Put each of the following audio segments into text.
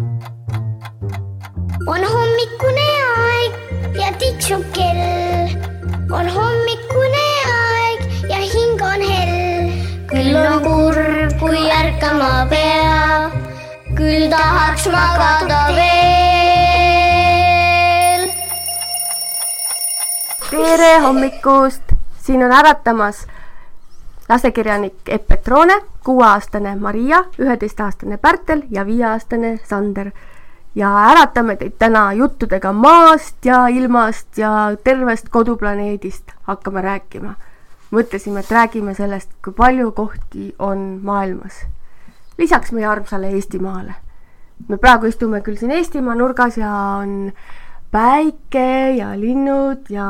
On hommikune aeg ja tiksub kell. On hommikune aeg ja hing on hell. Küll on kurb, kui ärkama peab. Küll tahaks magada veel. Tere hommikust! Siin on äratamas lastekirjanik Epp Petrone, 6-aastane Maria, 11-aastane Pärtel ja 5-aastane Sander. Ja äratame teid täna juttudega maast ja ilmast ja tervest koduplaneedist hakkame rääkima. Mõtlesime, et räägime sellest, kui palju kohti on maailmas. Lisaks meie armsale Eestimaale. Me praegu istume küll siin Eestimaa nurgas ja on päike ja linnud ja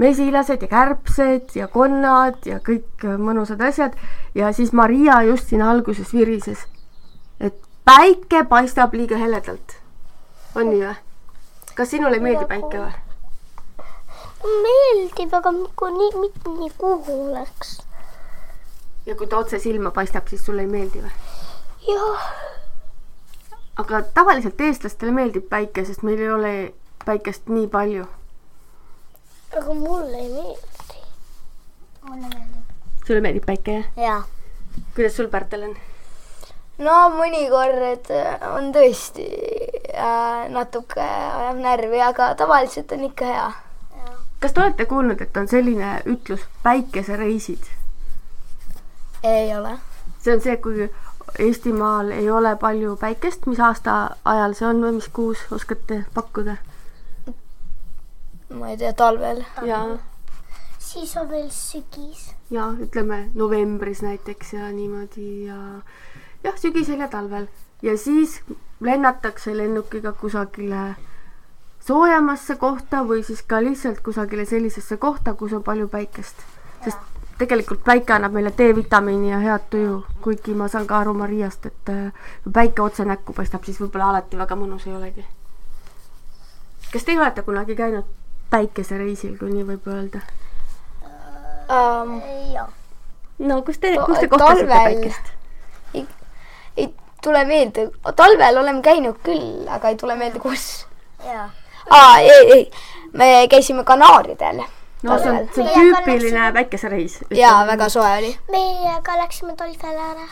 mesilased ja kärbsed ja konnad ja kõik mõnusad asjad. Ja siis Maria just siin alguses virises, et päike paistab liiga heledalt. On nii või? Kas sinule ei meeldi päike või? Meeldib, aga mitte nii kuhu oleks. Ja kui ta otse silma paistab, siis sulle ei meeldi või? Jah. Aga tavaliselt eestlastele meeldib päike, sest meil ei ole päikest nii palju. Aga mulle ei meeldi. Mulle meeldib. Sulle meeldib päike, jah? Jaa. Kuidas sul, Pärtel, on? No mõnikord on tõesti natuke ajab närvi, aga tavaliselt on ikka hea. Kas te olete kuulnud, et on selline ütlus päikesereisid? Ei ole. See on see, kui Eestimaal ei ole palju päikest, mis aasta ajal see on või mis kuus oskate pakkuda? Ma ei tea, talvel. Ja. Siis on veel sügis. Ja, ütleme novembris näiteks ja niimoodi ja jah, sügisel ja talvel. Ja siis lennatakse lennukiga kusagile soojamasse kohta või siis ka lihtsalt kusagile sellisesse kohta, kus on palju päikest. Sest tegelikult päike annab meile D-vitamiini ja head tuju, kuigi ma saan ka aru Mariast, et kui päike otse näkku paistab, siis võib-olla alati väga mõnus ei olegi. Kas te olete kunagi käinud päikesereisil, kui nii võib öelda? Jah. No, kus te kohtasite päikest? Ei tule meelde. Talvel oleme käinud küll, aga ei tule meelde kus. Jaa. Ei. Me käisime Kanaaridel. No see on tüüpiline päikesereis. Jaa, väga soe oli. Meie ka läksime talvele ära.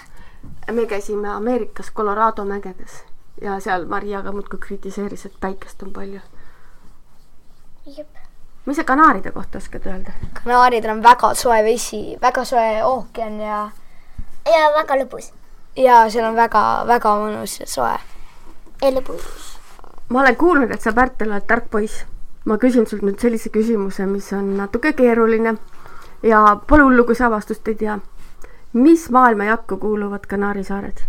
Me käisime Ameerikas Colorado mägedes ja seal Maria ka muudkui kritiseeris, et päikest on palju. Jep. Mis see Kanaaride kohta oskad öelda? Kanaaridel on väga soe vesi, väga soe ookean ja väga lõbus. Ja seal on väga mõnus ja soe. Ja lõbus. Ma olen kuulnud, et sa, Pärtel, oled tark poiss. Ma küsin sult nüüd sellise küsimuse, mis on natuke keeruline ja pole hullu, kui sa vastust ei tea. Mis maailma jakku kuuluvad Kanaari saared?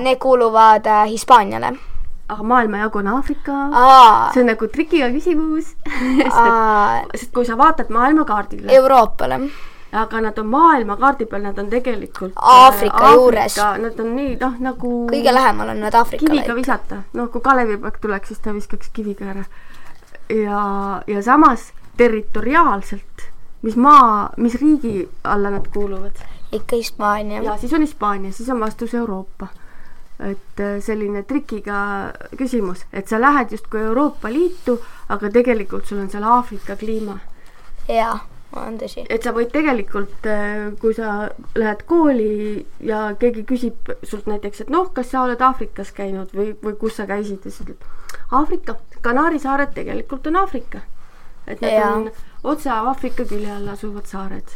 Need kuuluvad Hispaaniale. Aga maailma jagu on Aafrika. See on nagu trikiga küsimus. Sest kui sa vaatad maailmakaardile. Euroopale. Aga nad on maailmakaardi peal, nad on tegelikult Aafrika juures. Nad on nii, nagu kõige lähemal on nad Aafrikale. Kiviga visata. Kui Kalevipoeg tuleks, siis ta viskaks kiviga ära. Ja samas territoriaalselt, mis riigi alla nad kuuluvad? Ikka Hispaania. Ja siis on Hispaania, siis on vastus Euroopa. Et selline trikiga küsimus, et sa lähed just kui Euroopa Liitu, aga tegelikult sul on seal Aafrika kliima. Jaa, on tõsi. Et sa võid tegelikult, kui sa lähed kooli ja keegi küsib sult näiteks, et kas sa oled Aafrikas käinud või kus sa käisid, ja sa ütled, Aafrika, Kanaari saared tegelikult on Aafrika. Et need on otse Aafrika külje all asuvad saared.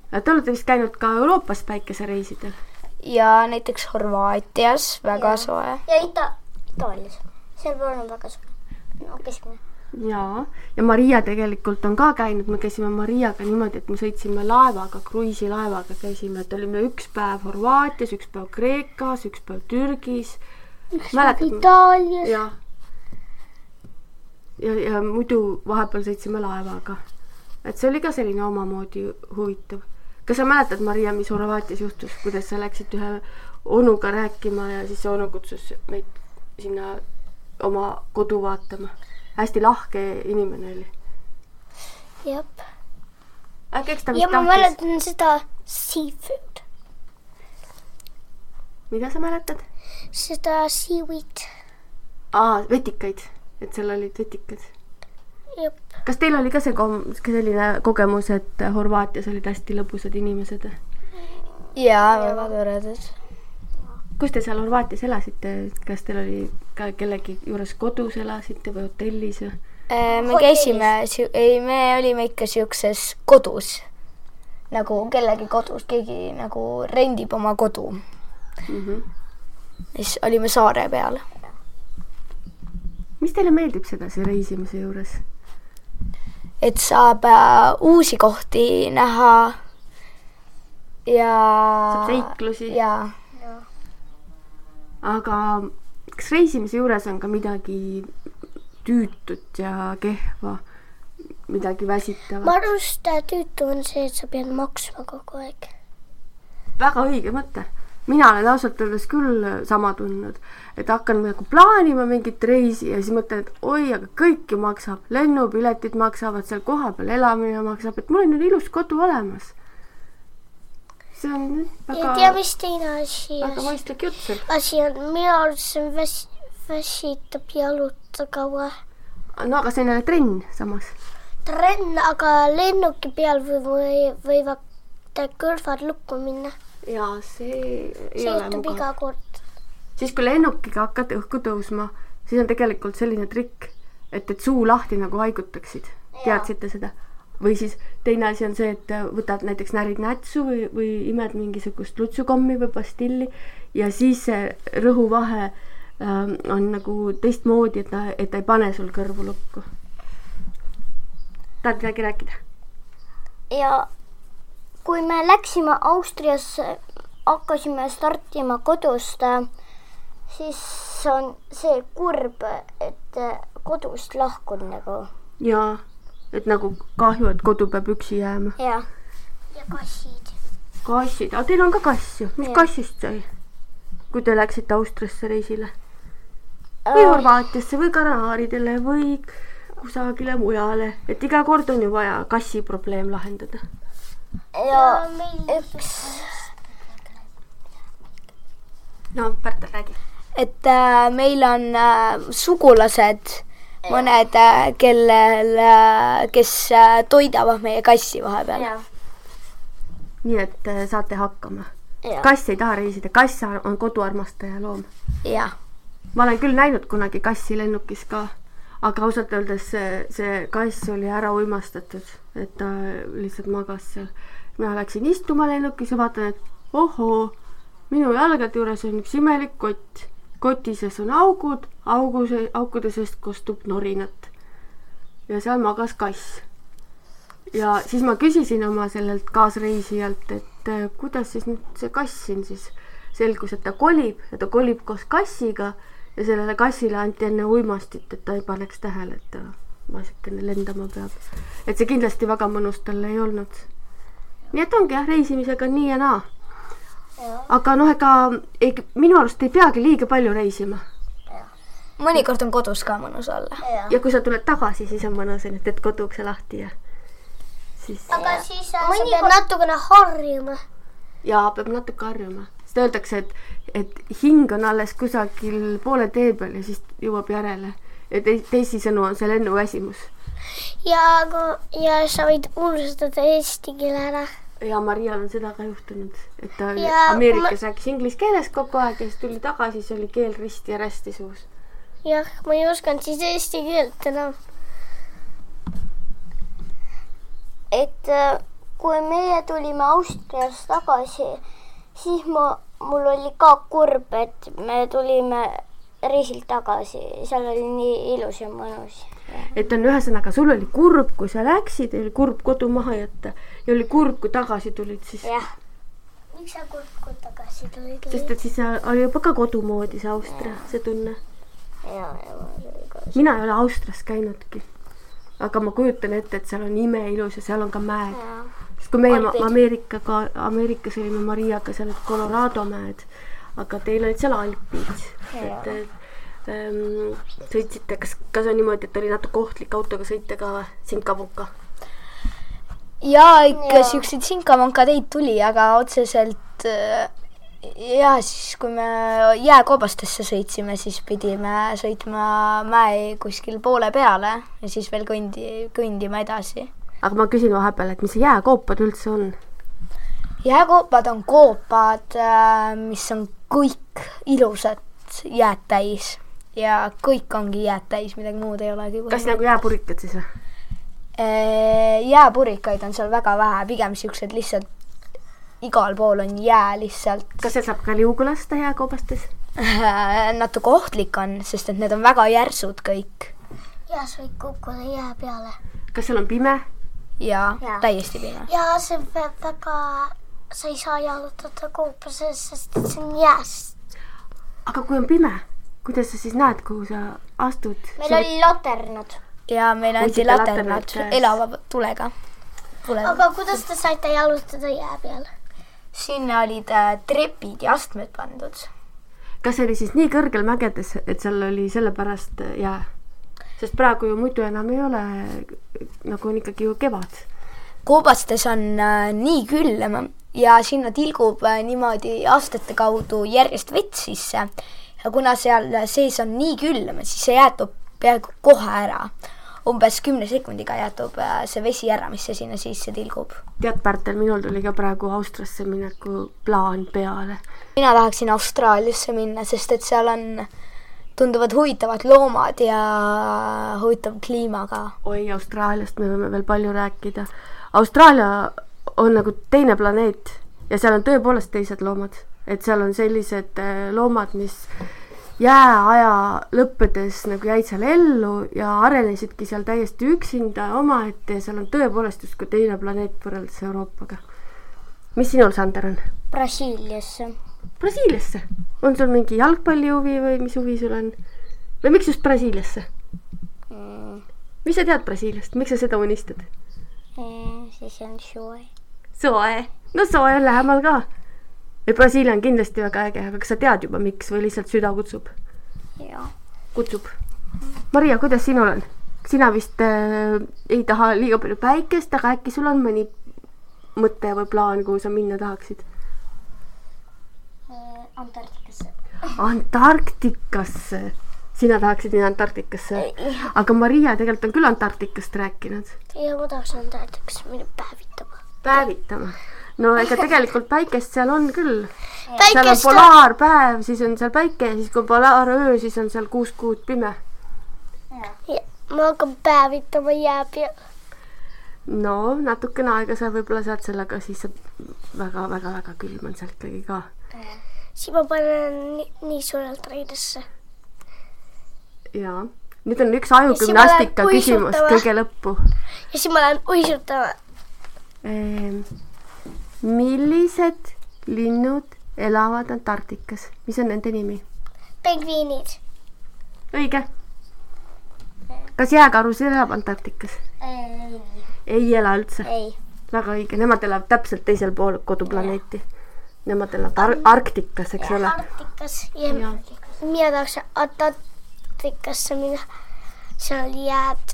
Te olete vist käinud ka Euroopas päikesereisidel? Ja näiteks Horvaatias väga soe. Ja Itaalias. Seal on väga soe. Keskmine. Ja Maria tegelikult on ka käinud. Me käisime Mariaga niimoodi, et me sõitsime laevaga, kruiisilaevaga käisime. Et olime üks päev Horvaatias, üks päev Kreekas, üks päev Türgis. Üks päev Itaalias. Ja muidu vahepeal sõitsime laevaga. Et see oli ka selline omamoodi huvitav. Kas sa mäletad, Maria, mis Horvaatias juhtus, kuidas sa läksid ühe onuga rääkima ja siis see onu kutsus meid sinna oma kodu vaatama? Hästi lahke inimene oli. Jep. Äkki eks ta ja ma mäletan seda seafood. mida sa mäletad? Seda seaweed. Vetikaid, et seal olid vetikad. Jep. Kas teil oli ka selline kogemus, et Horvaatias olid hästi lõbusad inimesed? Jaa, väga toredad. Kus te seal Horvaatias elasite? Kas teil oli ka kellegi juures kodus elasite või hotellis? Me käisime, me olime ikka siukses kodus. Nagu kellegi kodus, keegi nagu rendib oma kodu. Siis olime saare peal. Mis teile meeldib sedasi reisimise juures? Et saab uusi kohti näha ja... Saab seiklusi? Jaa. Aga kas reisimise juures on ka midagi tüütut ja kehva, midagi väsitavat? Ma arvust tüütu on see, et sa pead maksma kogu aeg. Väga õige mõte. Mina olen ausalt öeldes küll sama tundnud, et hakkan nagu plaanima mingit reisi ja siis mõtlen, et oi, aga kõik ju maksab. Lennupiletid maksavad, seal koha peal elamine maksab, et mul on ilus kodu olemas. See on väga... Ja tea, mis teine asi. Väga mõistlik jutt seal. Asi on, minu arvates väsitab jaluta kaua. No aga see on jälle trenn samas. Trenn, aga lennuki peal võivad kõrvad lukku minna. Jaa, see ei ole juhtub iga kord. Siis kui lennukiga hakkad õhku tõusma, siis on tegelikult selline trikk, et suu lahti nagu haigutaksid. Teadsite seda? Või siis teine asi on see, et võtad näiteks närid nätsu või imed mingisugust lutsukommi või pastilli ja siis see rõhuvahe on nagu teistmoodi, et ta ei pane sul kõrvu lukku. Tahad midagi rääkida? Ja kui me läksime Austriasse, hakkasime startima kodust, siis on see kurb, et kodust lahkun nagu. Jaa, et nagu kahju, et kodu peab üksi jääma. Ja kassid. Kassid, aga teil on ka kass ju. Mis kassist sai? Kui te läksite Austriasse reisile? Või Horvaatiasse või Kanaaridele või kusagile mujale. Et iga kord on ju vaja kassi probleem lahendada. Ja üks... No, Pärtel räägi. Et meil on sugulased, mõned, kes toidavad meie kassi vahepeal. Nii, et saate hakkama. Kass ei taha reisida. Kass on koduarmastaja loom. Jah. Ma olen küll näinud kunagi kassi lennukis ka, aga ausalt öeldes see kass oli ära uimastatud, et ta lihtsalt magas seal. Mina läksin istuma lennukis ja vaatan, et ohoo, minu jalgade juures on üks imelik kott. Kotises on augud, aukude seest kostub norinat. Ja seal magas kass. Ja siis ma küsisin oma sellelt kaasreisijalt, et kuidas siis nüüd see kass siin siis selgus, et ta kolib ja ta kolib koos kassiga ja sellele kassile anti enne uimastit, et ta ei paneks tähele, et ta vasikene lendama peab. Et see kindlasti väga mõnus talle ei olnud. Nii et ongi reisimisega nii ja naa. Aga ega minu arust ei peagi liiga palju reisima. Mõnikord on kodus ka mõnus olla. Ja kui sa tuled tagasi, siis on mõnus, et teed kodukse lahti ja siis... Aga siis sa pead natukene harjuma. Jaa, peab natuke harjuma. Seda öeldakse, et hing on alles kusagil poole tee peal ja siis jõuab järele. Ja teisisõnu on see lennuväsimus. Ja sa võid unustada eesti keele ära. Ja Marial on seda ka juhtunud, et ta Ameerikas rääkis inglise keeles kogu aeg ja siis tuli tagasi, siis oli keel risti ja rästi suus. Jah, ma ei osanud siis eesti keelt enam. Et kui meie tulime Austrias tagasi, siis mul oli ka kurb, et me tulime reisilt tagasi. Seal oli nii ilus ja mõnus. Et on ühesõnaga, sul oli kurb, kui sa läksid, oli kurb kodu maha jätta ja oli kurb, kui tagasi tulid siis. Jah. Miks sa kurb, kui tagasi tulid? Sest et siis oli juba ka kodumoodi see Austria, see tunne. Mina ei ole Austrias käinudki, aga ma kujutan ette, et seal on imeilus ja seal on ka mäed. Sest kui meie Ameerikas olime Mariaga, seal olid Colorado mäed, aga teil olid seal Alpid. Et sõitsite, kas on niimoodi, et oli natuke ohtlik autoga sõita ka sinkamunka? Jaa, ikka siukseid sinkamunka teid tuli, aga otseselt Ja siis, kui me jääkoobastesse sõitsime, siis pidime sõitma mäe kuskil poole peale ja siis veel kõndima edasi. Aga ma küsin vahepeal, et mis see jääkoopad üldse on? Jääkoopad on koopad, mis on kõik ilusad jääd täis ja kõik ongi jääd täis, midagi muud ei olegi. Kas nagu jääpurikad siis või? Jääpurikaid on seal väga vähe, pigem siuksed lihtsalt igal pool on jää lihtsalt. Kas seal saab ka liugu lasta jääkoobastes? Natuke ohtlik on, sest et need on väga järsud kõik. Ja sa võid kukkuda jää peale. Kas seal on pime? Ja. Täiesti pime. Ja see väga, sa ei saa jalutada koopases, sest et see on jääst. Aga kui on pime, kuidas sa siis näed, kuhu sa astud? Meil oli laternad. Ja meil anti laternad elava tulega. Aga kuidas te saite jalutada jää peale? Sinna olid trepid ja astmed pandud. Kas see oli siis nii kõrgel mägedes, et seal oli sellepärast jää? Sest praegu ju muidu enam ei ole, nagu on ikkagi ju kevad. Koobastes on nii külm ja sinna tilgub niimoodi astete kaudu järjest vett sisse. Ja kuna seal sees on nii külm, siis see jäätub peaaegu kohe ära. Umbes 10 sekundiga jäätub see vesi ära, mis see sinna sisse tilgub. Tead, Pärtel, minul tuli ka praegu Austriasse mineku plaan peale. Mina tahaksin Austraaliasse minna, sest et seal on tunduvad huvitavad loomad ja huvitav kliimaga. Oi, Austraaliast me võime veel palju rääkida. Austraalia on nagu teine planeet ja seal on tõepoolest teised loomad. Et seal on sellised loomad, mis jääaja lõppedes nagu jäid seal ellu ja arenesidki seal täiesti üksinda omaette ja seal on tõepoolest justkui teine planeet võrreldes Euroopaga. Mis sinul, Sander, on? Brasiiliasse. Brasiiliasse? On sul mingi jalgpallihuvi või mis huvi sul on? Või miks just Brasiiliasse? Mis sa tead Brasiiliast? Miks sa seda unistad? Siis on soe. Soe? No soe on lähemal ka. Ja Brasiilia on kindlasti väga äge, aga kas sa tead juba miks või lihtsalt süda kutsub? Ja. Kutsub. Maria, kuidas sinul on? Sina vist ei taha liiga palju päikest, aga äkki sul on mõni mõte või plaan, kuhu sa minna tahaksid? Antarktikasse. Antarktikasse? Sina tahaksid minna Antarktikasse? Aga Maria tegelikult on küll Antarktikast rääkinud. Ja ma tahaks Antarktikasse minna päevitama. Päevitama? No ega tegelikult päikest seal on küll. Seal on polaarpäev, siis on seal päike ja siis kui polaaröö, siis on seal 6 kuud pime. Ja, ma hakkan päevitama jää peale. No, natukene aega sa võib-olla saad sellega, siis väga külm on sealt kõigi ka. Siis ma panen nii suurelt reidesse. Jaa. Nüüd on üks ajugümnastika küsimus kõige lõppu. Ja siis ma lähen uisutama. Millised linnud elavad Antarktikas? Mis on nende nimi? Pingviinid. Õige. Kas jääkarus elab Antarktikas? Ei ela üldse? Ei. Väga õige. Nemad elavad täpselt teisel pool koduplaneeti. Nemad elavad Arktikas, eks ole? Arktikas. Ja mina tahaks Antarktikasse minna. Seal oli jääd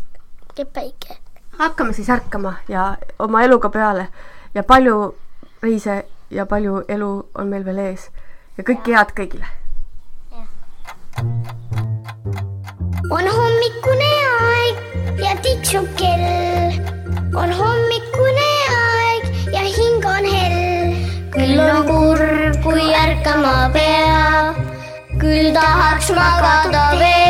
ja päike. Hakkame siis ärkama ja oma eluga peale. Ja palju reise ja palju elu on meil veel ees. Ja kõike head kõigile. On hommikune aeg ja tiksub kell. On hommikune aeg ja hing on hell. Küll on kurb, kui ärkama peab. Küll tahaks magada veel.